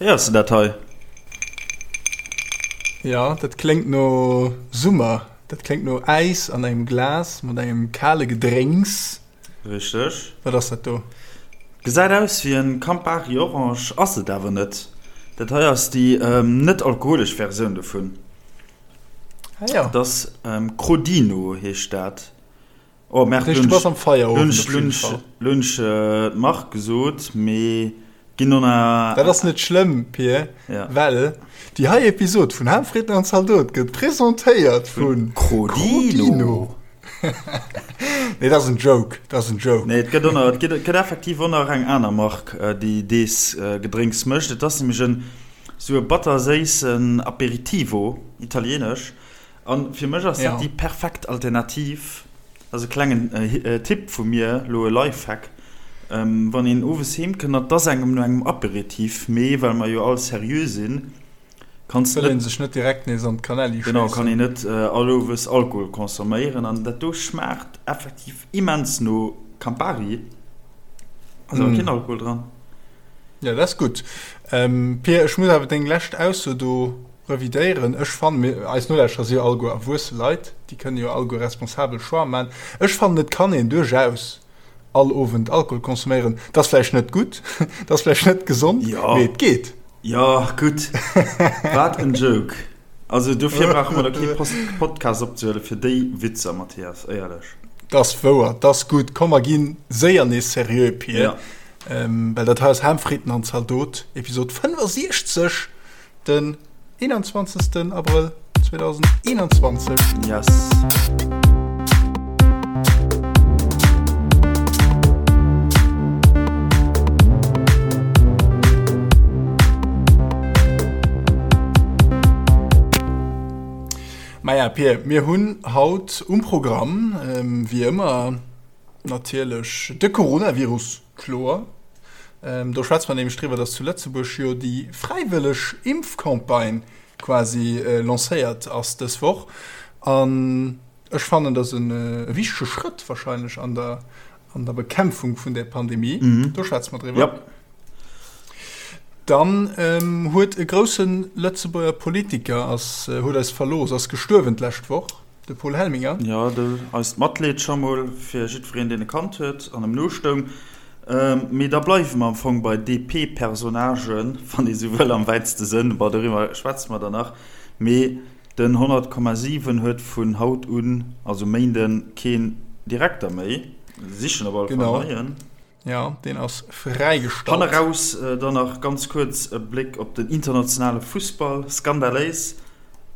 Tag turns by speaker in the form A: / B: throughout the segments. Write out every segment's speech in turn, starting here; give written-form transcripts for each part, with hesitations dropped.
A: Héiers de dat hei?
B: Jo, dat kléngt no Summer. Dat kléngt no Äis an engem Glas mat engem kale Gedrénks.
A: Richteg.
B: Wat ass dat do?
A: Gesäit aus wéi en Campari Orange, ass et awer net. Dat hei ass déi net alkoholesch Versioun dovun.
B: Ah jo.
A: Dat ass Crodino heescht dat. Oh
B: merde, lo hunn ech
A: lo hunn ech d'Mark gesot, mee ginn no
B: na. Dat ass net schlëmm, Pir, well déi hei Episod vun Ham, Fritten an Zaldot gëtt presentéiert vu
A: Crodino.
B: Nee, dat ass en Joke, dat ass en Joke.
A: Nee, et gëtt och nach, et gëtt effektiv och nach eng aner Mark, déi dees Gedrénks mécht. Et ass nämlech en sou e batterséissen Aperitivo, italienesch. An fir mech ass dat déi perfekt Alternativ, dat ass e klengen Tipp vu mir, elo e Lifehack, wann een owes heem kënnt an et ass engem no engem Aperitif, mee well mer jo all seriö sinn,
B: kanns de net. Wëll een sech net direkt nees an d'Kanelli
A: schéissen. Genau, kann een net all owes Alkohol consomméieren an dat do schmaacht effektiv immens no Campari, ass awer keen Alkohol dran.
B: Jo, dat ass gutt. Pir, ech muss awer deng lescht Ausso do Revidéieren. Ech fannen, mir, eis Nolauschterer si jo alleguer erwuesse Leit, déi kënne jo alleguer responsabel Choix man. Ech fannen, et kann een duerchaus all Owend Alkohol consomméieren. Et ass vläicht net gutt, et ass vläicht net gesond, mee et geet.
A: Jo, gutt. Wat en Joke. Also dofir brauche mer da kee Podcast opzehuelen, fir déi Witzer, Mathias, éierlech.
B: 't ass wouer, 't ass gutt. Komm, mer gi séier nees seriö, Pir, well dat hei ass Ham, Fritten an Zaldot, Episod 65. Den 21. Abrëll 2021.
A: Yes.
B: Maja, Pir, mir hunn haut um Programm, wéi ëmmer natierlech, de Coronavirus. Kloer. Do schwätze mer nämlech driwwer, dass zu Lëtzebuerg jo déi fräiwëlleg Impfcampagne quasi lancéiert ass dës Woch. An ech fannen, dat ass e wichtege Schrëtt wahrscheinlech an der, an der Bekämpfung vun där Pandemie. Do schwätze mer driwwer. Dann huet e grousse Lëtzebuerger Politiker ass, huet eis verlooss, ass gestuerwen d'lescht Woch. De Paul Helminger.
A: Jo, do eist Matleed scho mol fir jiddwereen, deen e kannt huet an em nostoung. Mee da bleiwe mer am Fong bei DP-Personnagen, wann ee sou wëll, am wäitste Sënn. Bon, doriwwer schwätze mer dann nach. Mee den 100,7 huet vun haut un, also Méinden, keen Direkter méi. Sichen op alle Fall neien.
B: Jo, deen ass fräigestallt.
A: Hanneraus dann nach ganz kuerz e Bléck op den internationale Fussball, skandaléis.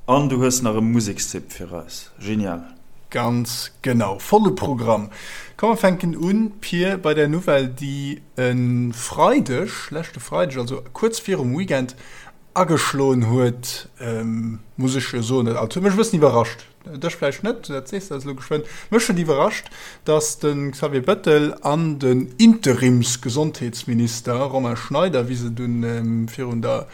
A: An du hues nach e Musekstipp fir eis, genial.
B: Ganz genau, volle Programm. Komm mer fänken un, Pir, bei der Nouvelle, déi e Freideg, leschte Freideg, also kuerz virum Weekend, ageschloen huet, muss ech jo soen, dat huet mech e bëssen iwwerrascht. Dech vläicht net, dat sees de eis elo geschwënn. Mech huet iwwerrascht, datt de Xavier Bettel an den Interimsgesondheetsminister Romain Schneider, wéi se dunn virun der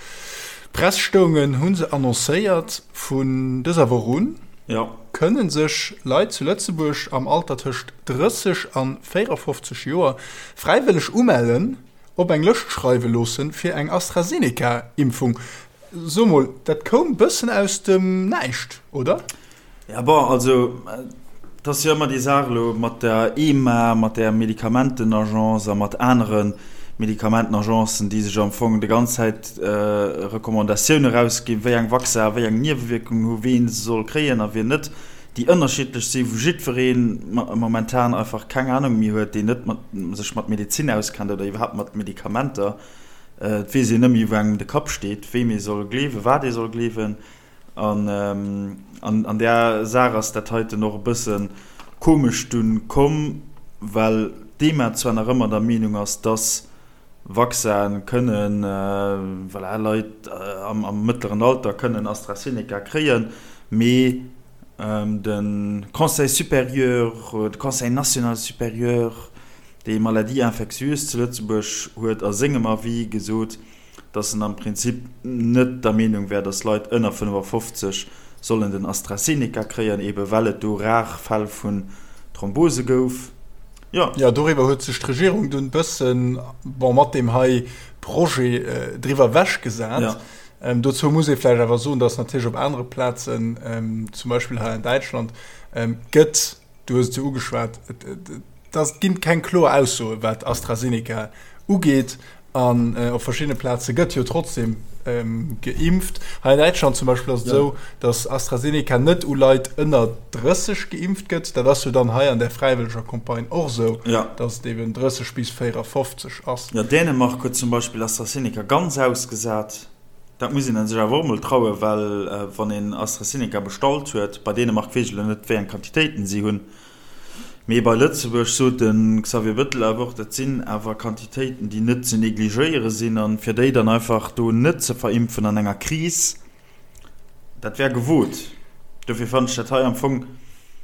B: Press stoungen, hu se annoncéiert, vun dëser Woch un kënne sech Leit zu Lëtzebuerg am Alter tëscht 30 a 54 Joer fräiwëlleg umellen, op eng Lëscht schreiwe loossen, fir eng AstraZeneca-Impfung. So mol, dat koum bëssen aus dem Näischt, oder?
A: Ja, bon, also et ass jo ëmmer déi Saach elo mat der EMA, mat där Medikamentenagence a mat anere Medikamentenagencen, déi sech am Fong déi ganz Zäit Recommandatioune erausginn, wéi eng Vaccin wéi eng Niewewierkungen hu, ween se soll kréien a wien net, déi ënnerschiddlech sinn, wou jiddweree momentan einfach keng Anung méi huet, deen net mat sech mat Medezin auskennt oder iwwerhaapt mat Medikamenter. Et weess een net méi, wou engem de Kapp steet, weem ee soll gleewen, wat ee soll gleewen. An an där Saach ass dat heiten och e bësse komesch dunn komm, well d'EMA zwar nach ëmmer der Meenung ass, dass Vaccine kënnen, voilà, Leit am mëttleren Alter kënnen AstraZeneca kréien, mee de Conseil supérieur, de Conseil national supérieur, Déi Maladie infectieuse zu Lëtzebuerg huet a sengem Avis gesot, datt en am Prinzip net der Meenung wär, datt Leit ënner 55 sollen den AstraZeneca kréien, ebe well et do rar Fäll vun Thrombose gouf. Jo.
B: Jo, doriwwer huet sech d'Regierung dunn bëssen, bon, mat deem hei Projet driwwer ewechgesat.
A: Ja.
B: Dozou muss ee vläicht awer soen, dass natierlech op anere Plazen, zum Beispill hei an Däitschland, gëtt, du hues et jo ugeschwat, et ass, et ginn keng kloer Aussoen, wat AstraZeneca ugeet. An op verschiddene Plaze gëtt jo trotzdem geimpft. Hei an Däitschland zum Beispill ass et esou, datt AstraZeneca net u Leit ënner 30 geimpft gëtt. Dat ass jo dann hei an där fräiwëlleger Campagne och esou, datt et eben 30 bis 54 ass.
A: Jo, Dänemark huet zum Beispill AstraZeneca ganz ausgesat. Dat muss een sech awer och emol trauen, well wann een AstraZeneca bestallt huet, bei Dänemark weess ech elo net, wéi eng Quantitéiten si hunn, Mee bei Lëtzebuerg sot de Xavier Bettel awer och, dat sinn awer Quantitéiten, déi net ze negligéiere sinn. A fir déi dann einfach do net ze verimpfen an enger Kris, dat wär gewot. Dofir fannen ech dat hei am Fong,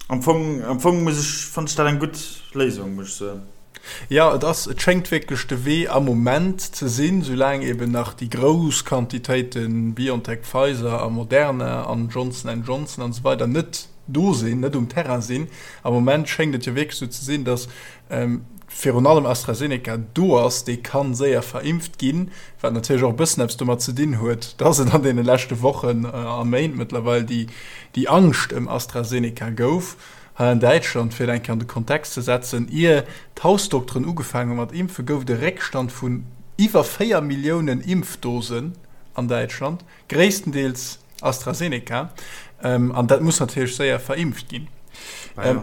A: am Fong, am Fong muss ech, fannen ech dat eng gutt Léisung, muss ech soen.
B: Jo, et ass, et schéngt wierklech de Wee am Moment ze sinn, soulaang eben nach déi grouss Quantitéite BioNTech, Pfizer a Moderna an Johnson and Johnson an esou weider net do sinn, net um Terrain sinn. Am Moment schéngt et jo wierklech esou ze sinn, datt virun allem AstraZeneca do ass, dee ka séier verimpft ginn, wat natierlech och e bëssen eppes domat ze dinn huet, datt et an deene leschte Wochen a Méint mëttlerweil déi déi Angscht ëm AstraZeneca gouf hei an Däitschland. Fir et eng Kéier an de Kontext ze setzen, Ier d'Hausdokteren ugefaangen hu mat impfen, gouf et e Réckstand vun iwwer 4 Milliounen Impfdosen an Däitschland. Gréisstendeels AstraZeneca, an dat muss natierlech séier verimpft ginn.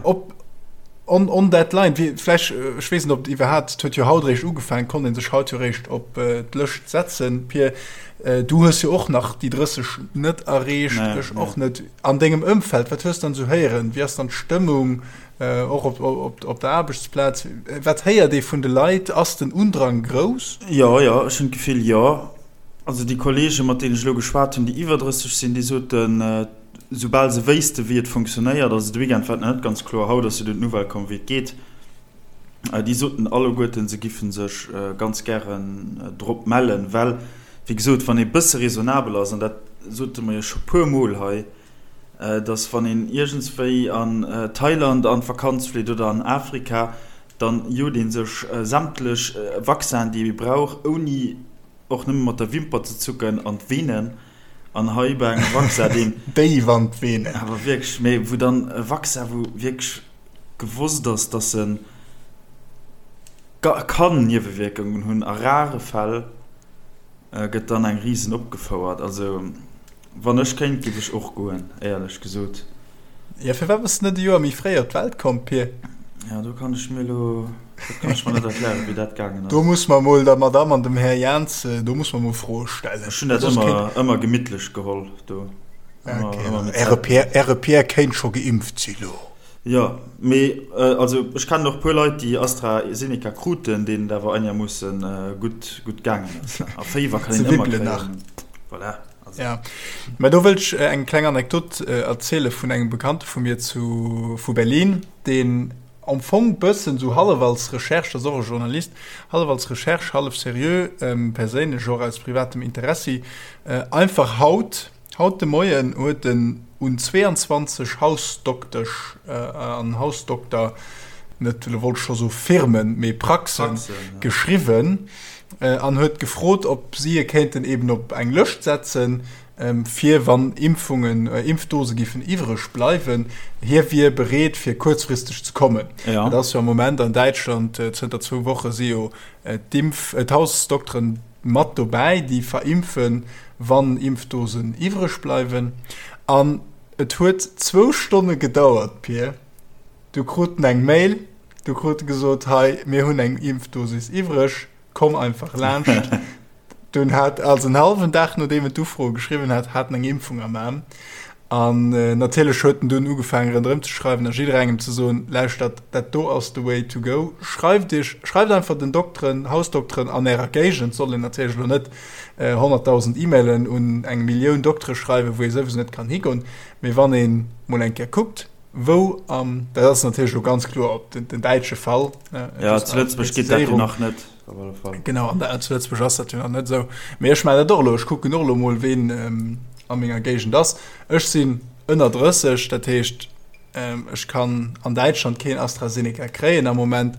B: Op on, on that line, wie, vläch, ech weess net, ob et iwwerhaapt, et huet jo haut eréischt ugefaangen, konnt ee sech haut jo eréischt op d'Lëscht setzen. Pir, du hues jo och nach déi 30 net erreecht, ech och net. An dengem Ëmfeld, wat hues de dann esou héieren? Wéi ass dann d'Stëmmung, och op, op, op der Aarbechtsplaz? Wat héiert ee vun de Leit? Ass den Undrang grouss?
A: Jo, jo, ech hunn d'Gefill, jo. Also déi Kollegen, mat deenen ech elo geschwat hunn, déi iwwer 30 sinn, déi soten, soubal se wéissten, wéi et funktionéiert, also de Weekend war et nach net ganz kloer, haut ass jo dunn d'Nouvelle komm, wéi et geet, déi soten alleguerten, se giffen sech ganz gären drop mellen, well, wéi gesot, wann ee bësse raisonnabel ass, an dat sote mer jo scho puer Mol hei, dass wann een iergendswéi an Thailand an d'Vakanz flitt oder an Afrika, dann jot ee sech sämtlech Vaccinen, déi ee brauch, ouni Och nëmme mat der Wimper ze zucken an d'Venen. An hei bei engem Vaccin, deen.
B: Déif an d'Venen.
A: Awer wierklech, mee wou dann e Vaccin, wou wierklech gewosst ass, dass e kann Niewewierkungen hunn, a rare Fäll, gëtt dann eng Risen opgefouert. Also. Wann ech kéint, giff ech och goen, éierlech gesot.
B: Jo, firwat bass de net e Joer méi fréi op d'Welt komm, Pir?
A: Jo, do kann ech mir elo, dat kann ech mer net erklären, wéi dat gaangen ass.
B: Do muss mer mol der Madame an dem Här Jans, do muss mer mol Froe stellen.
A: Ech hunn dat ëmmer, ëmmer gemittlech geholl do.
B: Ëmmer, ëmmer mit Äre Pär, Äre Pär kéint scho geimpft si lo.
A: Jo, mee also ech kennen och puer Leit, déi AstraZeneca kruten, deenen et awer einermoossen gutt, gutt gaangen ass. A Féiwer kann een ëmmer kréien. Voilà.
B: Also. Ja. Mä do wëll ech eng kleng Anekdot erziele vun engem Bekannte vu mir zu, vu Berlin, deen am Fong bëssen sou hallef als Recherche, dat ass och e Journalist, hallef als Recherche, hallef seriö, perséinlech och aus privatem Interessi, einfach haut, haut de Moien huet en un 22 Hausdoktesch an Hausdokter, net, elo wollt ech scho soe Firmen, mee Praxen, geschriwwen, an huet gefrot, ob si e kéinten eben op eng Lëscht setzen, fir wann Impfungen, Impfdose giffen iwwreg bleiwen. Hie wier bereet, fir kuerzfristeg ze kommen.
A: Ja.
B: Et ass jo am Moment an Däitschland, zënter zwou Woche si jo d'Impf-, d'Hausdokteren mat dobäi, déi verimpfen, wann Impfdosen iwwreg bleiwen. An et huet zwou Stonne gedauert, Pir, du krut en eng Mail, Du krut gesot, hei, mir hunn eng Impfdosis iwwreg, komm einfach laanscht. Dunn hat, also en hallwen Dag nodeem en d'Ufro geschriwwen hat, hat en eng Impfung am Aarm. An natierlech huet en dunn ugefaangen ronderëm ze schreiwen a jidderengem ze soen, lauschtert, dat do ass the way to go, schreift iech, schreift einfach den Dokteren, Hausdokteren an ärer Géigend, soll een natierlech elo net 100.000 E-Mailen un eng Millioun Doktere schreiwen, wou ee souwisou net kann higoen, mee wann ee mol eng Kéier kuckt, Wou am, dat ass natierlech elo ganz kloer op den, den däitsche Fall.
A: Ja, zu Lëtzebuerg geet dat jo nach net,
B: op alle Fall. Genau, an der, zu Lëtzebuerg ass dat jo nach net esou. Mee ech maachen dat och elo, ech kucken och elo mol, ween a menger Géigend ass. Ech sinn ënner 30, dat heescht, Ech kann an Däitschland keen AstraZeneca kréien am Moment,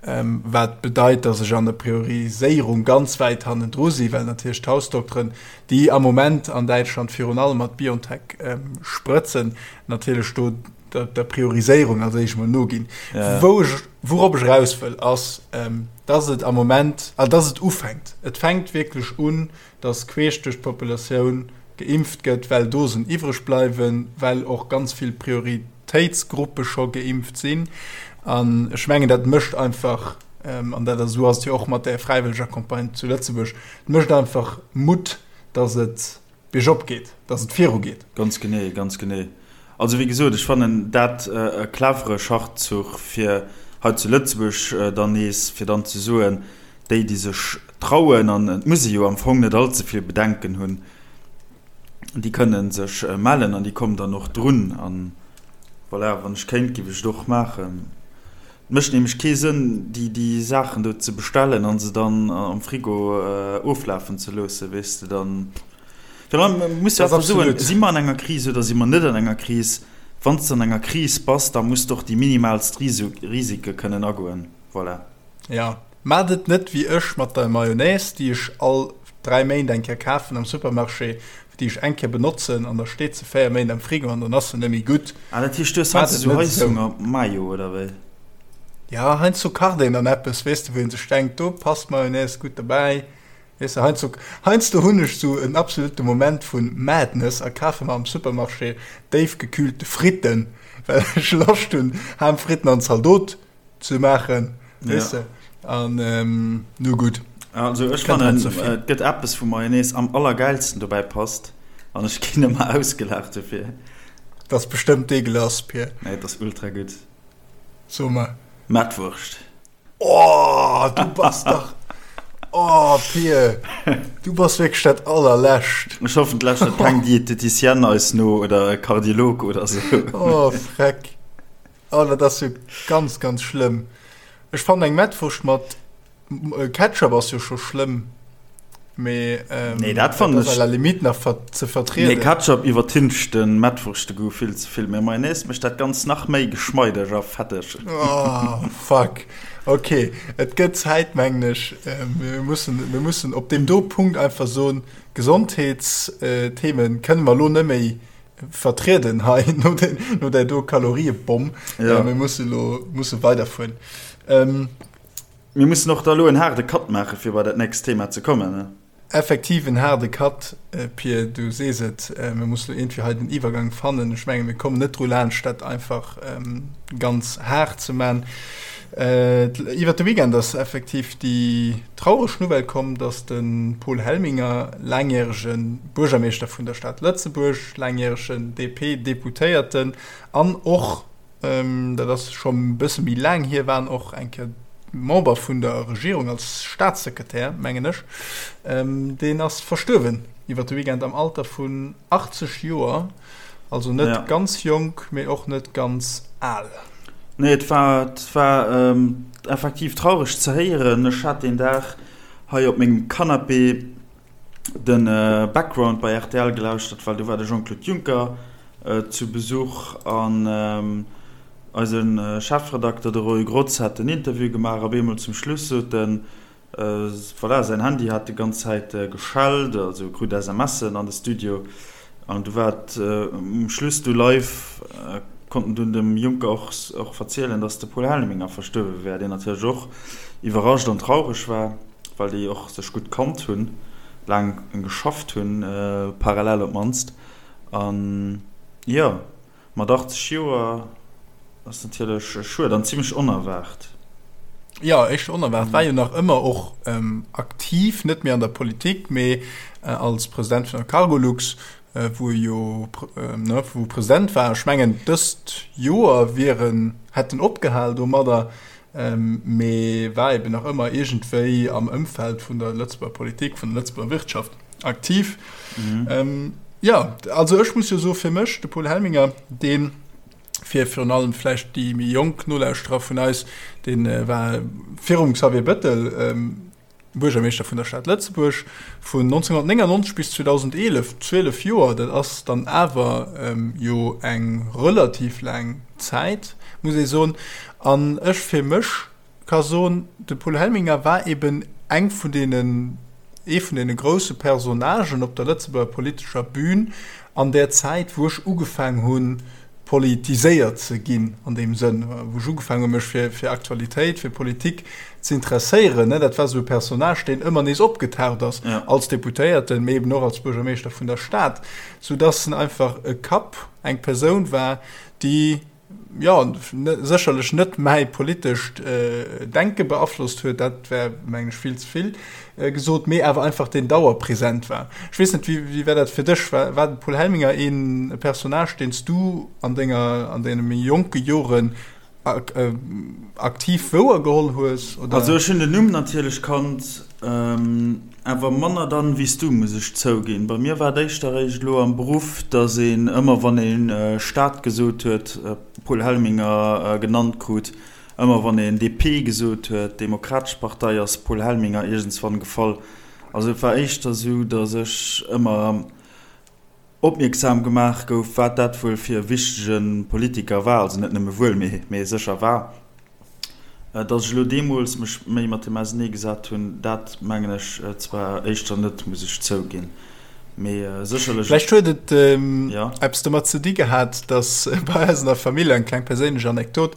B: wat bedeit, datt ech an der Prioriséierung ganz wäit hannendru si, well natierlech d'Hausdokteren, déi am Moment an Däitschland virun allem mat BioNTech sprëtzen, natierlech do der Prioriséierung als éischt mol noginn. Wou ech, wourop ech eraus wëll, ass, datt et am Moment, also datt et ufänkt, et fänkt wierklech un, dass queesch duerch d'Populatioun geimpft gëtt, well Dosen iwwreg bleiwen, well och ganz vill Prioritéitsgruppe scho geimpft sinn. An ech mengen, dat mécht einfach, an dat ass, esou ass et jo och mat där fräiwëlleger Campagne zu Lëtzebuerg, et mécht einfach Mutt, dass et biergop geet, dass et virugeet.
A: Ganz genee, ganz genee. Also wéi gesot, ech fannen dat e clevere Schachzuch, fir hei zu Lëtzebuerg dann nees, fir dann ze soen, déi, déi sech trauen, an et muss ee jo am Fong net allze vill Bedenken hunn, déi kënne sech mellen an déi kommen dann och drun. An voilà, wann ech kéint, géif ech et och maachen. Et mécht nämlech kee Sënn, déi, déi Saachen do ze bestellen a se dann am Frigo oflafen ze loossen, weess de, dann. Virun allem muss du einfach soen, si mer an enger Kris oder si mer net an enger Kris? Wann s de an enger Kris bass, da muss de och déi minimalst Risike kënnen agoen. Voilà.
B: Jo, maacht et net wéi ech mat der Mayonnaise, déi ech all 3 Méint eng Kéier kafen am Supermarché, déi ech eng Kéier benotzen an da steet se 4 Méint am Frigo an dann ass se net méi gutt.
A: Ah, dat heescht, du hues heiansdo esou Heishunger Mayo, oder wéi?
B: Jo, heiansdo kacht een dann eppes, weess de, wou ee sech denkt, do passt Mayonnaise gutt dobäi. Weess de, heiansdo, heiansdo hunn ech sou en absolute Moment vu Madness a kafe mer am Supermarché déifgekühlte Fritten, well ech Loscht hunn, Ham, Fritten an Zaldot ze maachen, weess de. An nu gutt.
A: Also ech fannen, et gëtt eppes, wou Mayonnaise am allergäilsten dobäi passt an ech ginn ëmmer ausgelaacht dofir.
B: Dat ass bestëmmt deegelass, Pir.
A: Nee, et ass ultra gutt.
B: So mer.
A: Mettwurscht.
B: Oh, du bass dach. Oh, Pir, du bass wierklech dat allerlescht.
A: Ech hoffen, et lauschtert keng Dieteticienne eis no oder e Kardiolog oder sou.
B: Oh, freck. Oh, dat ass jo ganz, ganz schlëmm. Ech fannen eng Mettwurscht mat Ketchup ass jo scho schlëmm. Mee
A: ähm, nee, dat fannen ech à
B: la limite nach ver ze vertrieden.
A: Nee, Ketchup iwwertüncht den Mettwurschte-Goût vill ze vill. Mee Mayonnaise mécht dat Ganzt nach méi geschmeideg a fetteg.
B: Oh, fuck. Okay, et gëtt Zäit, mengen ech. Mir mussen, mir mussen op deem do Punkt einfach soen, Gesondheetsthemen kënne mer elo net méi vertrieden hei no, de, no där do Kaloriebomm. Ja. Mir musse lo musse weiderfueren.
A: Ähm, Mir mussen och da elo en haarde Cut maachen, fir bei dat nächst Thema ze kommen, ne?
B: Effektiv en haarde Cut, Pir, du sees et. Mir mussen elo iergendwéi hei den Iwwergang fannen. Ech menge mir kommen net dru laanscht, dat einfach ganz haart ze man. Iwwert de Weekend ass effektiv déi traureg Nouvelle komm, datt de Paul Helminger, laangjärege Buergermeeschter vun der Stad Lëtzebuerg, laangjäregen DP-Deputéierten an och, Dat ass scho e bësse méi laang hier, war en och eng Kéier Member vun der Regierung als Staatssekretär, mengen ech. Deen ass verstuerwen iwwer de Weekend am Alter vun 80 Joer. Also net ja. ganz jonk, mee och net ganz al.
A: Nee, et war, et war ähm, effektiv traureg ze héieren. Ech hat deen Dag hei op mengem Canapé den Background bei rtl gelauschtert, well do war de Jean-Claude Juncker zu Besuch an eise Chefredakter, de Roy Grotz, hat den Interview gemaach. Op eemol zum Schluss sot en, voilà, säin Handy hat déi ganz Zäit geschellt, also e krut SMSen an de Studio an du war et um Schluss du live, konnt en dunn dem Juncker och och verzielen, datt de Paul Helminger verstuerwe wär, deen natierlech och iwwerrascht an traureg war. Well déi och sech gutt kannt hunn, laang geschafft hunn, parallel op d'mannst. An jo, mat 80 Joer ass natierlech schued an zimmlech onerwaart.
B: Jo, éischter onerwaart. War jo nach ëmmer och aktiv, net méi an der Politik, mee als President vun der Cargolux, wou e jo, ne, wou e President war. Ech mengen, dëst Joer wier en, hätt en opgehal domadder. Mee war eben nach ëmmer iergendwéi am Ëmfeld vun der Lëtzebuerger Politik, vun der Lëtzebuerger Wirtschaft aktiv. Mhm. Ähm, ja, also ech muss jo so fir mech, de Paul Helminger, deen fir virun allem vläicht déi méi jonk Nolauschterer vun eis, deen äh, war virum Xavier Bëttel ähm, Buergermeeschter vun der Stad Lëtzebuerg vun 1999 bis 2011, 12 Joer, dat ass dann awer jo eng relativ laang Zäit, muss ee soen. An ech fir mech ka soen, de Paul Helminger war eben eng vun deenen, ee vun deene grousse Personnagen op der Lëtzebuerger politescher Bühn an där Zäit, wou ech ugefaang hunn, politiséiert ze ginn an deem Sënn, wou ech ugefaangen hu mech fir fir Aktualitéit, fir Politik ze interesséieren. Dat war esou e Personnage, deen ëmmer nees opgetaucht ass, als Deputéierten, mee eben och als Buergermeeschter vun der Stad, soudass en einfach e Kapp, eng Persoun war, déi, jo, sécherlech net mäi politescht Denke beaflosst huet, dat wär, mengen ech, vill ze vill gesot, mee awer einfach deen dauerpräsent war. Ech weess net, wéi war dat fir dech? War war de Paul Helminger een Personnage, deen s du an denger, an deene méi jonke Joren aktiv wouergeholl hues,
A: oder? Also ech hunn den Numm natierlech kannt, awer manner dann wéi s du, muss ech zouginn. Bei mir war et éischter eréischt elo am Beruff, datt een ëmmer wann ee Stad gesot huet, Paul Helminger genannt krut. Ëmmer wann een DP gesot huet, Demokratesch Partei, ass Paul Helminger iergendswann gefall. Also et war éischter esou, datt ech ëmmer opmierksam gemaach gouf, wat dat wuel fir e wichtege Politiker war, also net nëmme wuel, mee sécher war. Datt ech elo deemools mech méi mat him auseneegesat hunn, dat mengen ech zwar éischter net, muss ech zouginn. Mee sécherlech.
B: Vläicht huet et eppes domat ze di gehat, datt bei eis an der Famill, eng kleng perséinlech Anekdot,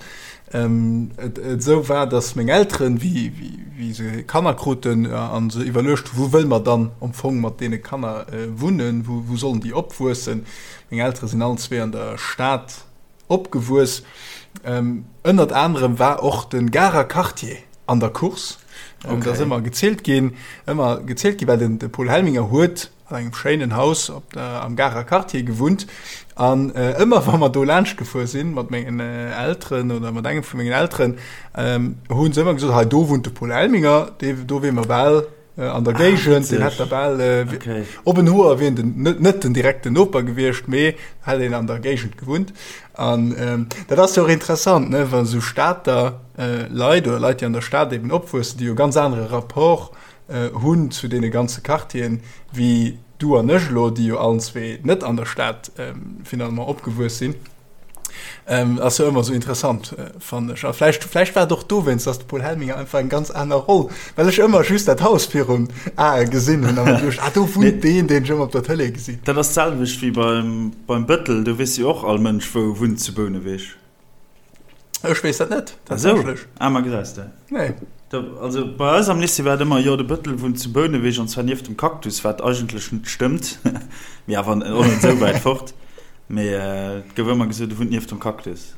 B: et esou war, datt meng Elteren, wéi se Kanner kruten a se iwwerluecht hu wou wëlle mer dann am Fong mat deene Kanner wunnen, wou sollen déi opwuessen. Meng Eltere sinn allen zwee an der Stad Opgewuess. Ënnert anerem war och de Garer Quartier an der Course. Okay. Dat ass ëmmer gezielt ginn, ëmmer gezielt ginn, well den de Paul Helminger huet an engem schéinen Haus op der, am Garer Quartier gewunnt. An äh, ëmmer wa mer do laanscht gefuer sinn mat mengen äh, Elteren oder mat engem vu mengen Elteren, ähm, hunn se ëmmer gesot, hei do wunnt de Paul Helminger, dee, do wier mer bal an der ah, Géigend, den hätt der bal äh, okay. op en Hoer wien den net, net den direkten Noper gewiescht, mee hätt een an der Géigend gewunnt. An ähm, dat ass jo och interessant, ne, wann sou Stater äh, Leit oder Leit, déi an der Stad eben opwuessen, déi jo ganz anere Rapport äh, hunn zu deene ganze Quartieren, wéi du an ech elo, déi jo allen zwee net an der Stad ähm, finalement opgewuess sinn. Ähm, ass jo ëmmer sou interessant, äh, fannen ech. A vläicht, vläicht war et och dowéinst, dass de Paul Helminger einfach eng ganz aner Roll, well ech ëmmer just dat Haus virum Ae gesinn hunn a mer duecht, ah, do wunnt deen, deen ech ëmmer op der Tëlee gesinn.
A: Dat ass d'selwecht wéi beim, beim Bëttel, do weess jo och all Mënsch, wou e wunnt zu Bouneweg.
B: Ech weess dat net,
A: tatsächlech. Ah, ma gesäis de.
B: Nee.
A: Da, also bei eis am Lycée war et ëmmer, jo, de Bëttel wunnt zu Bouneweg an zwar nieft dem Cactus, wat eigentlech net stëmmt, mee awer och net esou wäit fort. Mee et gouf ëmmer gesot, e wunnt nieft dem Cactus.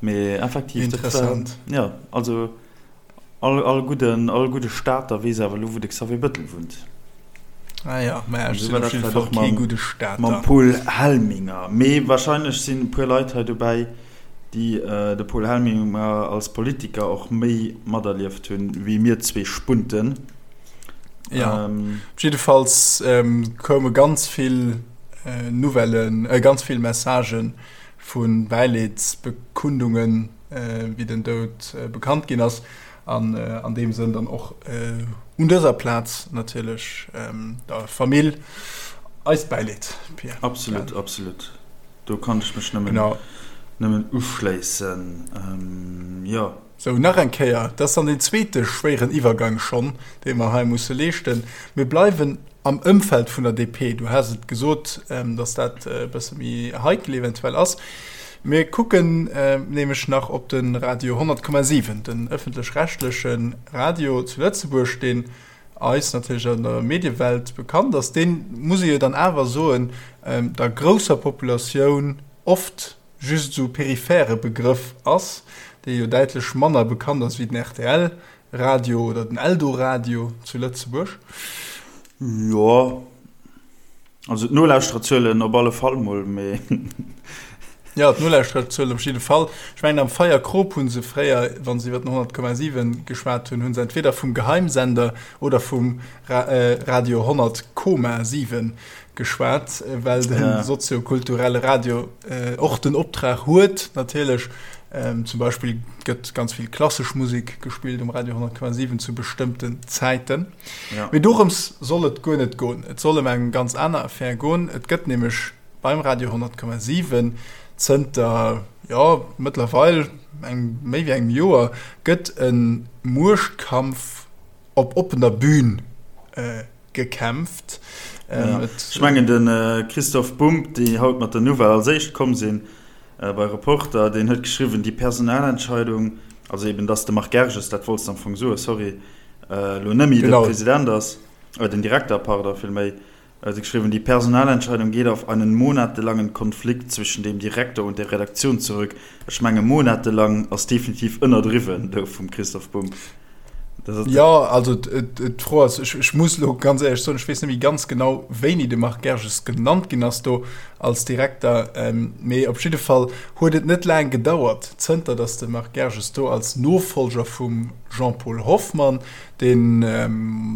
A: Mee effektiv,
B: dat war, Interessant.
A: jo, also all, all gudden, all gudde Stater weess awer elo, wou de Xavier Bëttel wunnt.
B: Ah ja, mä ech sinn op jidde Fall kee gudde Stater.
A: Mam Paul Helminger. Mee wahrscheinlech sinn e puer Leit hei dobäi, déi de Paul Helminger als Politiker och méi materlieft hunn, wéi mir zwee Spunten.
B: Ja, op jiddefalls koume ganz vill Nouvellen, ganz vill Messagë vu Bäileedsbekundungen, wéi den Doud bekannt ginn ass. An an deem Sënn dann och un dëser Plaz natierlech der Famill eist Bäileed,
A: Pierre. Absolut, absolut. Do kann ech mech nëmmen, nëmmen uschléissen, jo.
B: Sou, nach eng Kéier, dat ass dann deen zweete schwéieren Iwwergang schonn, dee mer hei musse leeschten. Mir bleiwen am Ëmfeld vun der DP. Du has et gesot, dass dat e bësse méi heikel eventuell ass. Mir kucken nämlech nach op de Radio 100,7, den ëffentlech-rechtleche Radio zu Lëtzebuerg, deen eis natierlech an der Mediewelt bekannt ass. Deen, muss ee jo dann awer soen, der grousser Populatioun oft just esou periphere Begrëff ass, dee jo däitlech manner bekannt ass wéi den rtl Radio oder den Eldoradio zu Lëtzebuerg.
A: Jo, also d'Nolauschtererzuelen op alle Fall mol, mee.
B: Jo, d'Nolauschtererzuelen op jidde Fall. Ech mengen, am Feierkrop hu se fréier, wa se iwwer den 100,7 geschwat hunn, hu se entweder vum Geheimsender oder vum Radio 100,7 geschwat, well de soziokulturelle Radio och den Optrag huet, natierlech. Zum Beispill gëtt ganz vill klassesch Musek gespillt um Radio 100,7 zu bestëmmten Zäiten. Ja. Mee dorëms soll et guer net goen. Et soll ëm eng ganz aner Affär goen. Et gëtt nämlech beim Radio 100,7 zënter, jo, mëttlerweil eng, méi wéi engem Joer gëtt e Muechtkampf op oppener Bühn gekämpft.
A: Ja. Ech mengen de Christoph Bumb, déi haut mat der Nouvelle als éischt komm sinn bei Reporter, deen huet geschriwwen, déi Personalentscheidung, also eben datt de Marc Gerges, dat wollts de am Fong soen, sorry, elo net méi de President ass, den Direkter, pardon, villméi, huet e geschriwwen, die Personalentscheidung geht auf einen monatelangen Konflikt zwischen dem Direktor und der Redaktion zurück. Ech menge monatelang ass definitiv ënnerdriwwen do vum Christoph Bumb.
B: Jo, also d'Fro ass, ech muss elo ganz éierlech soen, ech weess net méi ganz genau, wéini de Marc Gerges genannt ginn ass do als Direkter, mee op jidde Fall huet et net laang gedauert, zënter datt de Marc Gerges do als Nofollger vum Jean-Paul Hoffmann, deen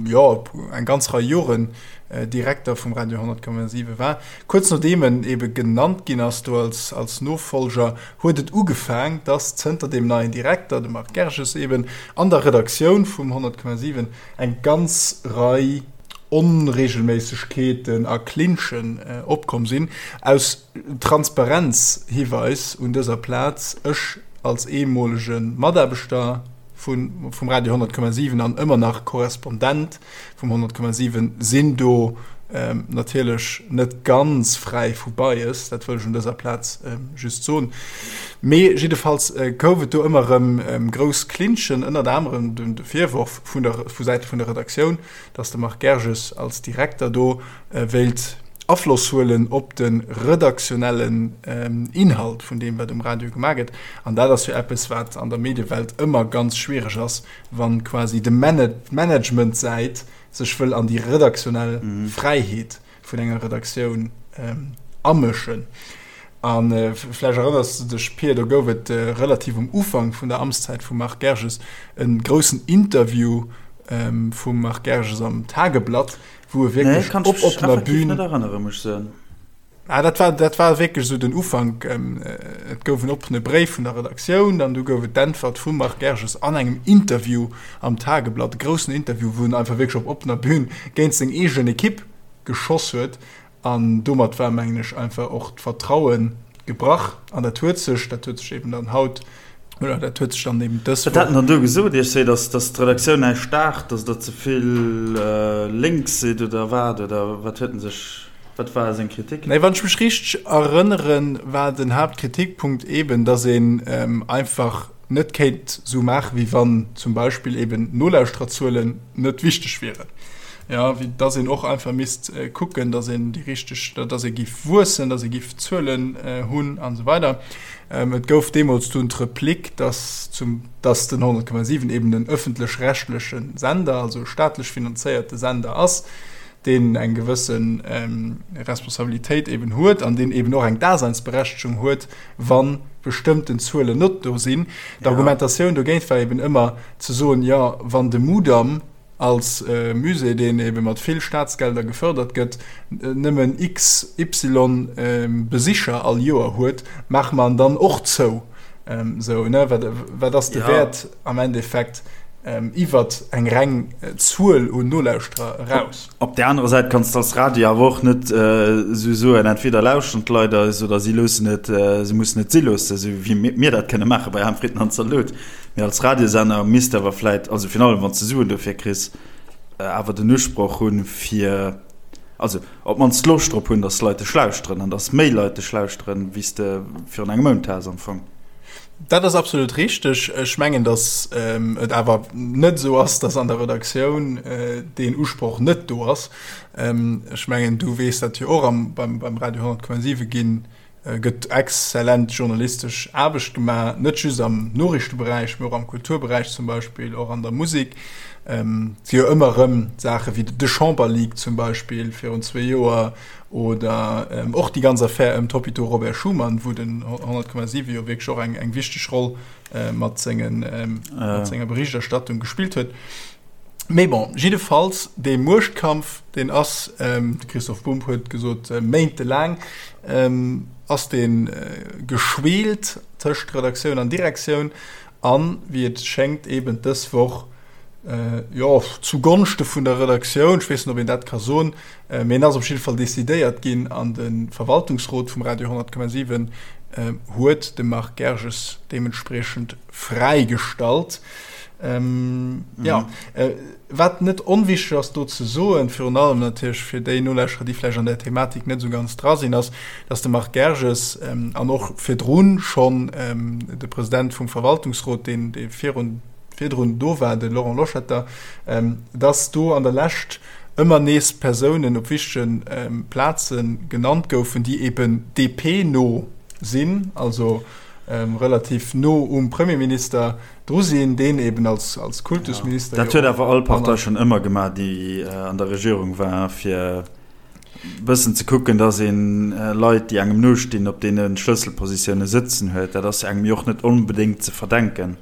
B: jo eng ganz Rei Joren Direkter vum Radio 100,7 war, kuerz nodeem en ebe genannt ginn ass do als als Nofollger, huet et ugefaang, dass zënter deem neien Direkter, dem Marc Gerges eben, an der Redaktioun vum 100,7 eng ganz Rei Onregelméissegkeeten a Clinchen opkomm sinn. Aus Transparenz-Hiweis un dëser Plaz, ech als ehemolege Mataarbechter vum Radio 100,7 an ëmmer nach Korrespondent vum 100,7 sinn do natierlech net ganz fräi vu Bias, dat wëll ech un dëser Plaz just soen. Mee jiddefalls gouf et do ëmmer erëm grouss Clinchen, ënnert anerem de Virworf vun der vu Säite vun der Redaktioun, datt de Marc Gerges als Direkter do wéilt Afloss huelen op de redaktionellen Inhalt vun deem, wat um Radio gemaach gëtt. An dat ass jo eppes, wat an der Mediewelt ëmmer ganz schwiereg ass, wann quasi de Managementsäit sech wëll an déi redaktionell Fräiheet vun enger Redaktioun amëschen. A vläicht erënners de dech, Pir, do gouf et relativ um Ufank vun der Amtszäit vum Marc Gerges e groussen Interview vum Marc Gerges am Tageblatt, wou e wierklech op oppener Bühn. Ah, dat war, dat war wierklech esou den Ufank. Et gouf en oppene Bréif vun der Redaktioun an du gouf et d'Äntwert vum Marc Gerges an engem Interview am Tageblatt, e groussen Interview, wou en einfach wierklech op oppener Bühn géint seng eegen Ekipp geschoss huet. An domat war, mengen ech, einfach och d'Vertraue gebrach. An dat huet sech, dat huet sech eben dann haut, oder dat huet sech dann eben
A: dës Wat hat en dann do gesot? Iech seet, dass, dass d'Redaktioun näischt daacht, dass der ze vill lénks sidd oder wat? Oder wat huet en sech. Wat war seng Kritik?
B: Nee, wann ech mech richteg erënneren, war den Haaptkritikpunkt eben, dass een einfach net kéint sou maachen, wéi wann zum Beispill eben d'Nolauschtererzuelen net wichteg wieren. Jo, wéi dass een och einfach misst kucken, dass een déi richteg, dass ee giff wuessen, dass ee giff Zuelen hunn an esou weider. Et gouf deemools dunn d'Replik, dass zum, dass den 100,7 eben en ëffentlech-rechtleche Sender, also e staatlech finanzéierte Sender ass, deen eng gewësse Responsabilitéit eben huet an deen eben och eng Daseinsberechtegung huet, wa bestëmmten Zuelen net do sinn. D'Argumentatioun dogéint war eben ëmmer ze soen, jo, wann de Mudam als Musée, deen ebe mat vill Staatsgelder gefërdert gëtt, nëmmen XY Besicher all Joer huet, maache mer en dann och zou. Sou, ne? Wat, wat ass de Wäert am Endeffekt iwwert eng reng Zuel un Nolauschterer eraus?
A: Op där anerer Säit kanns de als Radio awer och net esou soen, entweder lauschteren d'Leit eis oder si loossen et, si mussen et si loossen, esou wéi mir dat kënne maache bei Ham Fritten an Zalot. Mee als Radiosender misst awer vläit, also virun allem wann s de Suen dofir kriss, awer den Usproch hunn, fir, also op d'mannst Loscht drop hunn, dass d'Leit dech lauschteren an dass méi Leit dech lauschteren, wéi s de virun engem Mount has am Fong.
B: Dat ass absolut richteg. Ech mengen, dass et awer net esou ass, dass an der Redaktioun deen Usproch net do ass. Ech mengen, du weess dat jo och, beim Radio 100,7 ginn gëtt exzellent journalistesch Aarbecht gemaach, net just am Noriichteberäich, mee och am Kulturberäich zum Beispill, och an der Musek. Et si jo ëmmer erëm Saache wéi de Chamberleak zum Beispill virun zwee Joer oder och déi ganz Affär ëm d'Hôpitaux Robert Schuman, wou den 100,7 jo wierklech och eng wichteg Roll mat senger Berichterstattung gespillt huet. Mee bon, jiddefalls, dee Muechtkampf, deen ass, de Christoph Bumb huet gesot, méintelaang ass dee geschweelt. tëscht Redaktioun an Direktioun an, wéi et schéngt, eben dës Woch, jo, zu Gonschte vun der Redaktioun, ech weess net, ob een dat ka soen, mee en ass op jidde Fall decidéiert ginn an de Verwaltungsrot vum Radio 10,7 huet de Marc Gerges deementspriechend fräigestallt. Jo, wat net onwichteg ass do ze soen, virun allem natierlech fir déi Nolauschterer, déi vläicht an där Thematik net esou ganz dra sinn, ass, dass de Marc Gerges an och virdrun schonn de President vum Verwaltungsrot, deen dee virun virdrun do war, de Laurent Loschetter, dass do an der Lescht ëmmer nees Persounen op wichtege Plaze genannt goufen, déi eben DP-no sinn, also relativ no um Premierminister dru sinn, deen eben als als Kultusminister.
A: Dat huet awer all Partei schonn ëmmer gemaach, déi an der Regierung war, fir bëssen ze kucken, datt ee Leit, déi engem nostinn, op deene Schlësselpositioune sëtzen huet. Dat ass engem jo och net onbedéngt ze verdenken.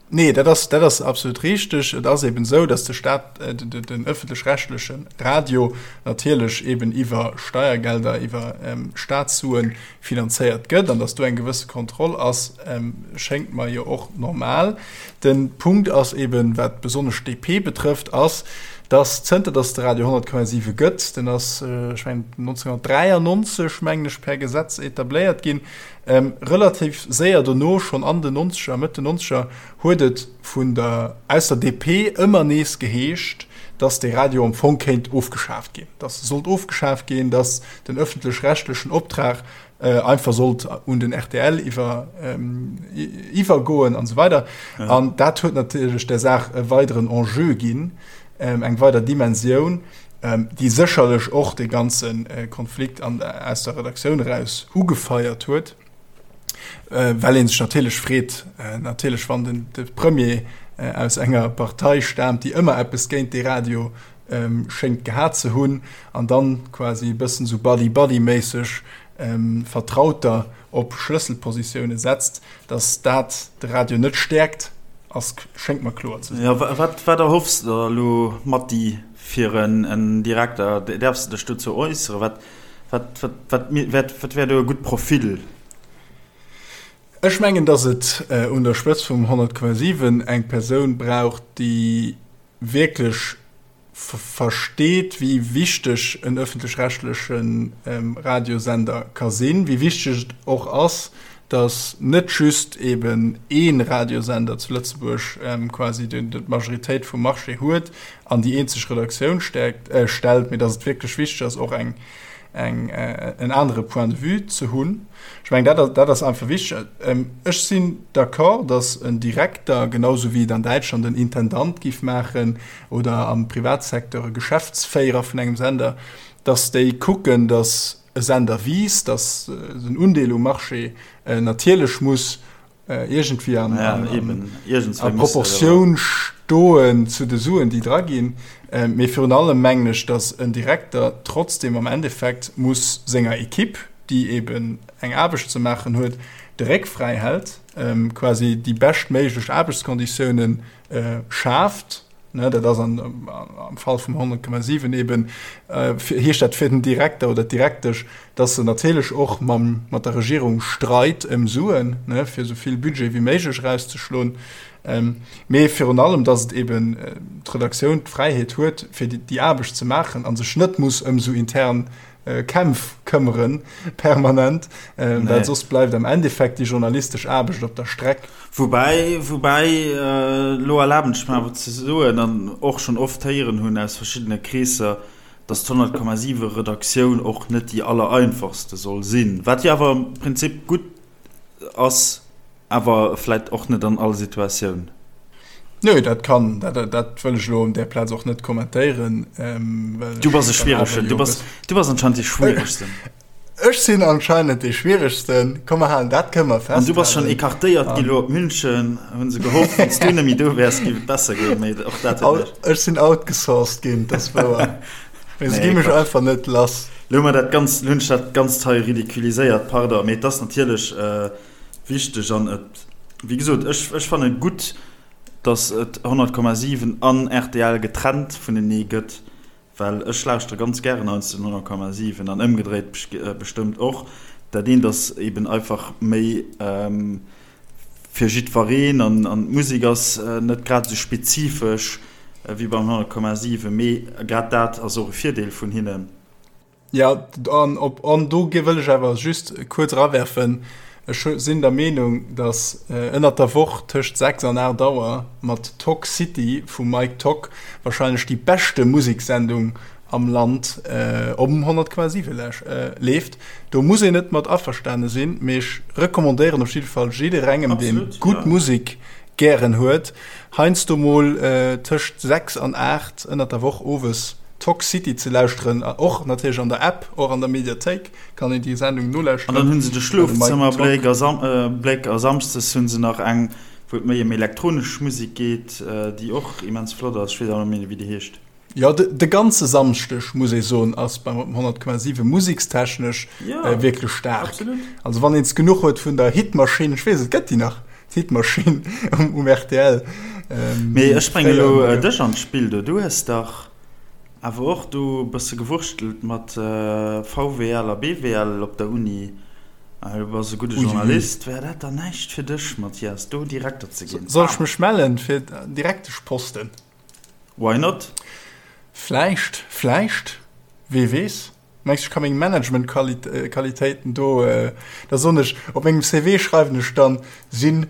B: Nee, dat ass, dat ass absolut richteg. Et ass eben esou, datt de Staat, den ëffentlech-rechtleche Radio natierlech eben iwwer Steiergelder, iwwer Staatssuen finanzéiert gëtt an datt do eng gewësse Kontroll ass, schéngt mer jo och normal. De Punkt ass eben, wat besonnesch d'DP betrëfft, ass, datt zënter datt de Radio 100,7 gëtt, den ass, ech mengen 1993, mengen ech, per Gesetz etabléiert ginn, Relativ séier dono, schonn an den Nonzeger, Mëtt den Nonzeger, huet et vun der, aus der DP ëmmer nees geheescht, datt dee Radio am Fong kéint ofgeschaaft ginn, datt e sollt ofgeschaaft ginn, datt den ëffentlech-rechtlechen Optrag einfach sollt un den rtl iwwer, iwwergoen an esou weider. An dat huet natierlech der Saach e weideren Enjeu ginn, eng weider Dimensioun. déi sécherlech och dee ganze Konflikt an aus der Redaktioun eraus ugefeiert huet, well ee sech natierlech freet, natierlech wann den de Premier aus enger Partei staamt, déi ëmmer eppes géint dee Radio schéngt gehat ze hunn, an dann quasi e bëssen esou Buddy-Buddy-méisseg Vertrauter op Schlësselpositioune setzt, datt dat de Radio net stäerkt, ass, schéngt mer kloer ze
A: sinn. Jo, wat, wat erhoffs de der elo, Matti, fir en Direkter? Däerfs de dech dozou äusseren? Wat, wat, wat, wat, wat, wat wär do e gutt Profil?
B: Ech mengen, datt et un der Spëtzt vum 100,7 eng Persoun brauch, déi wierklech versteet, wéi wichteg en ëffentlech-rechtleche Radiosender ka sinn, wéi wichteg et och ass, datt net just eben ee Radiosender zu Lëtzebuerg quasi d'Majoritéit vum Marché huet an déi eenzeg Redaktioun stäerkt, stellt, mee datt et wierklech wichteg ass, och eng eng en anere Point de vue ze hunn. Ech mengen, dat dat ass einfach wichteg. Ech sinn d'accord, datt en Direkter, genau sou wéi et an Däitschland en Intendant giff maachen oder am Privatsecteur e Geschäftsféierer vun engem Sender, datt déi kucken, datt e Sender wiisst, datt den Undeel um Marché natierlech muss iergendwéi an, ja, an, a Proportioun stoen zu de Suen, déi dra ginn. Mee virun allem mengen ech, datt en Direkter trotzdem am Endeffekt muss senger Ekipp, déi eben eng Aarbecht ze maachen huet, de Réck fräi hält, quasi déi beschtméiglech Aarbechtskonditiounen schaaft. Ne, dat ass an, am Fall vum 100,7 eben, heescht dat fir den Direkter oder d'Direktesch, dass se natierlech och mam, mat der Regierung streit ëm Suen, ne, fir esou vill Budget wéi méiglech erauszeschloen. Mee virun allem, dass et eben d'Redaktioun d'Fräiheet huet, fir déi Aarbecht ze maachen a sech net muss ëm esou intern Kämpf këmmeren, permanent, well soss bleift am Endeffekt déi journalistesch Aarbecht op der Streck.
A: Woubäi, woubäi, elo erlaben ech mer awer ze soen, an och schonn oft héieren hunn aus verschiddene Kreesser, dass d'100,7 Redaktioun och net déi allereinfachste soll sinn, wat jo awer am Prinzip gutt ass, awer vläit och net an all Situatioun.
B: Nö, dat kann, dat, dat wëll ech elo un där Plaz och net kommentéieren.
A: Ähm, du bass e schwieregen, du bass, du bass anscheinend dee schwieregsten.
B: Ech sinn anscheinend dee schwieregsten. Komm, mer halen, dat kënne mer
A: festhalen. An du bass schonn écartéiert gi lo op München, hu se gehofft, wann s du net méi do wäers, géif et besser goen, mee och
B: dat huet net. Ech sinn outgesourced ginn, dat ass wouer. Mee se gi mech einfach net lass.
A: Lo hu mer dat Ganzt, lo hunn ech dat Ganzt hei ridiculiséiert, pardon, mee et ass natierlech wichteg an et, wéi gesot, ech, ech fanne gutt, datt et 100,7 an rtl getrennt vunenee gëtt, well ech lauschtere ganz gären heiansdo den 100,7 an ëmgedréit bestëmmt och. Dat eent ass eben einfach méi fir jiddwereen an d'Musek ass net grad esou spezifesch wéi beim 100,7, mee grad dat ass och e Virdeel vun hinnen.
B: Jo, an op an do wëll ech awer just kuerz erawerfen, ech sinn der Meenung, datt ënnert der Woch tëscht 6 an 8 Auer mat Tock City vum Mike Tock wahrscheinlech déi beschte Museksendung am Land om 100,7 leeft. Do muss een net mat averstane sinn, mee ech recommandéieren op jidde Fall jidderengem, dee gutt Musek gären huet, heiansdo mol tëscht 6 an 8 ënnert der Woch owes Talk City ze lauschteren, och natierlech an der App, och an der Mediathéik kann een déi Sendung nolauschteren.
A: An dann hunn se de Schlofzëmmerbléck a Bléck a samschdes hunn se nach eng, wou et méi ëm elektronesch Musek geet, déi och immens flott ass. Ech weess awer net méi, wéi déi heescht.
B: Jo, de ganze Samschdeg, muss ee soen, ass beim 100,7 musekstechnesch wierklech staark. Also wann een es genuch huet vun der Hitmaschinn, ech weess, et gëtt déi nach, d'Hitmaschinn um rtl.
A: Mee ech bréngen elo dech an d'Spill do. Du hues dach awer och do e bësse gewurschtelt mat VWL a BWL op der Uni. Du bass e gudde Journalist. Wär dat dann näischt fir dech, Mathias, do Direkter ze ginn?
B: Soll ech mech mellen fir Direkteschposten?
A: Why not?
B: Vläicht, vläicht, wee weess. Mengs du, ech ka meng Management-Qualitéiten do, da soen ech, op mengem CV schreiwen ech dann, sinn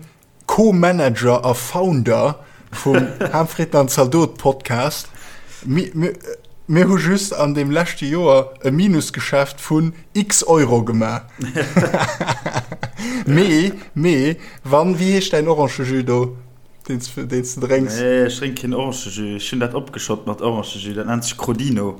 B: Co-Manager a Founder vum Ham, Fritten an Zaldot Podcast. Mir hu just an deem leschte Joer e Minusgeschäft vun x Euro gemaach. Mee, mee, wann, wéi heescht däin Orangejus do? Deen s de drénks?
A: Nee, ech drénk keen Orangejus. Ech hunn dat opgeschott mat Orangejus. Dat nennt sech Crodino.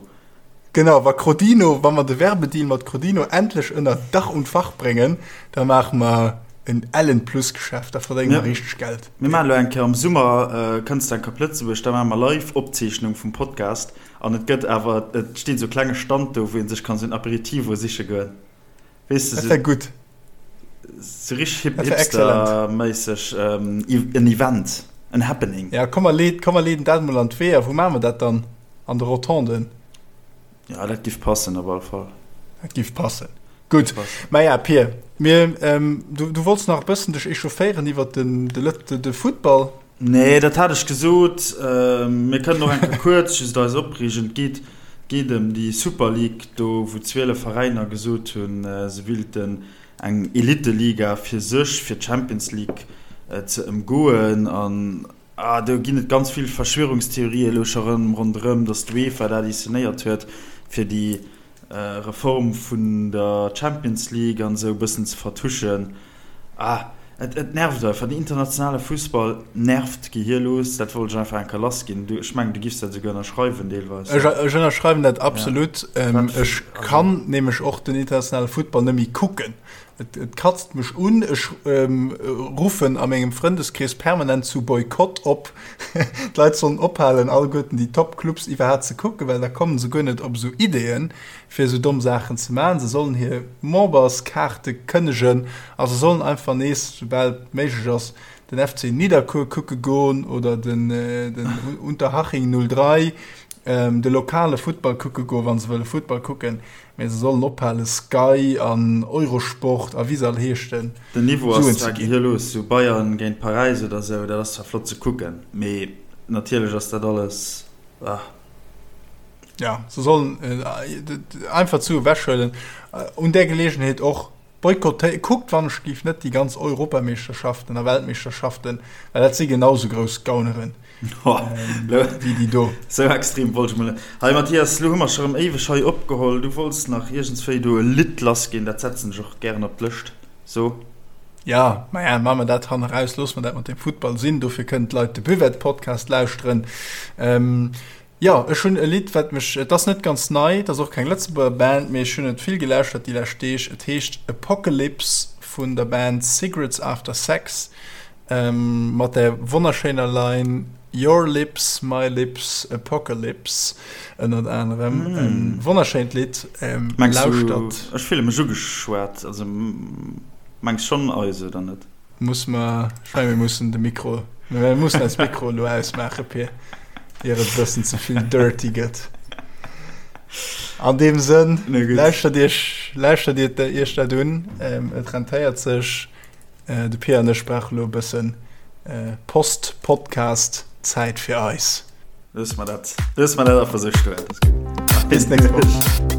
B: Genau, wa Crodino, wa mer de Werbedeal mat Crodino endlech ënner Dach und Fach bréngen, da maache mer en ellen Plusgeschäft, da verdénge mer richteg Geld.
A: Mir maachen elo eng Kéier am Summer, kënns de eng Kéier op Lëtzebuerg, da maache mer live Opzeechnung vum Podcast an et gëtt awer, et steet esou e klenge Stand do, wou ee sech kann esou en Aperitivo siche goen.
B: Weess de, Dat wär gutt.
A: Sou richteg hip, hipsterméisseg, en Event, en Happening.
B: Ja, komm mer leed, komm mer leeden dat emol an d'Weeër. Wou maache mer dat dann? An de Rotonden?
A: Ja, dat giff passen op alle Fall.
B: Dat giff passen. Gutt. Maja, Pir, mir, du, du wollts nach e bëssen dech echaufféieren iwwert den, de Lët, de Futtball.
A: Nee, dat hat ech gesot. Mir kënnen och eng Kéier kuerz just eis opreegen. Et geet, geet ëm déi Super League do, wou 12 Veräiner gesot hunn, se wilten eng Elite-Liga fir sech, fir d'Champions League ze ëmgoen. An ah, do ginn et ganz vill Verschwörungstheorien elo scho rëm ronderëm, datt d'UEFA dat inszenéiert huet, fir déi Reform vun der Champions League an esou e bëssen ze vertuschen. Ah, et, et nervt einfach. Den internationale Fussball nervt gehierlos. Dat wollt ech einfach eng Kéier lassginn. Du, ech mengen, du giffs dat esouguer ënnerschreiwen deelweis.
B: Ech, ech ënnerschreiwen dat absolut. Ja. Wat, ech kann nämlech och den internationale Futtball net méi kucken. Et, et katzt mech un. Ech ähm, ruffen a mengem Frëndeskrees permanent zu Boykott op. D'Leit sollen ophalen, alleguerten déi Top-Clubs iwwerhaapt ze kucken, well da kommen se guer net op esou Ideeën, fir esou domm Saachen ze maachen. Se sollen hir Memberskaarte kënnegen a se sollen einfach nees, soubal et méiglech ass, den FC Nidderkuer kucke goen oder den, den Unterhaching 03, de lokale Futtball kucke goen, wa se wëlle Futtball kucken. Mee se sollen ophalen Sky an Eurosport a wéi se all heeschten
A: Den Niveau ass zwar gehierlos, sou Bayern géint Paräis oder sou, dat ass zwar flott ze kucken, mee natierlech ass dat alles ah.
B: Ja, se sollen einfach d'Sue ewechhuelen. Un där Geleegenheet och Boykottéiert, kuckt wann ech géif net déi ganz Europameeschterschaften a Weltmeeschterschaften, well dat si genau sou grouss Gauneren wéi déi do.
A: Sou extrem wollt ech mol net. Hei Mathias, lo hu mer scho rëm éiweg hei opgeholl. Du wollts nach iergendswéi do e Lidd lassginn, dat setzen ech och gären op d'Lëscht. So.
B: Ja, maja, maache mer dat hanneraus, loosse mer dat mat dem Futtball sinn, dofir kënnen d'Leit de Buvette-Podcast lauschteren. Jo, ech hunn e Lidd, wat mech, et ass net ganz nei, et ass och keng Lëtzebuerger Band, mee ech hunn et vill gelauschtert déi lescht Deeg. Et heescht Apocalypse vun der Band Cigarettes After Sex mat der wonnerschéiner Line Your lips, my lips, apocalypse ënnert anerem. E wonnerschéint Lidd,
A: lauschtert. Ech fille mech ugeschwat, also mengs schonn eis, oder net?
B: Muss mer, ech mengen mir mussen de Mikro, mir mussen eis Mikro elo ausmaachen, Pir, ier et e bëssen ze vill dirty gëtt. An deem Sënn, lauschtert Iech, lauschtert Iech dat un. Et rentéiert sech. De Pia an ech brauche lo e bëssen Post-Podcast-Zäit fir eis.
A: Loosse mer dat, loosse mer dat einfach esou stoen. Dat ass gutt.
B: Bis d'nächst Woch.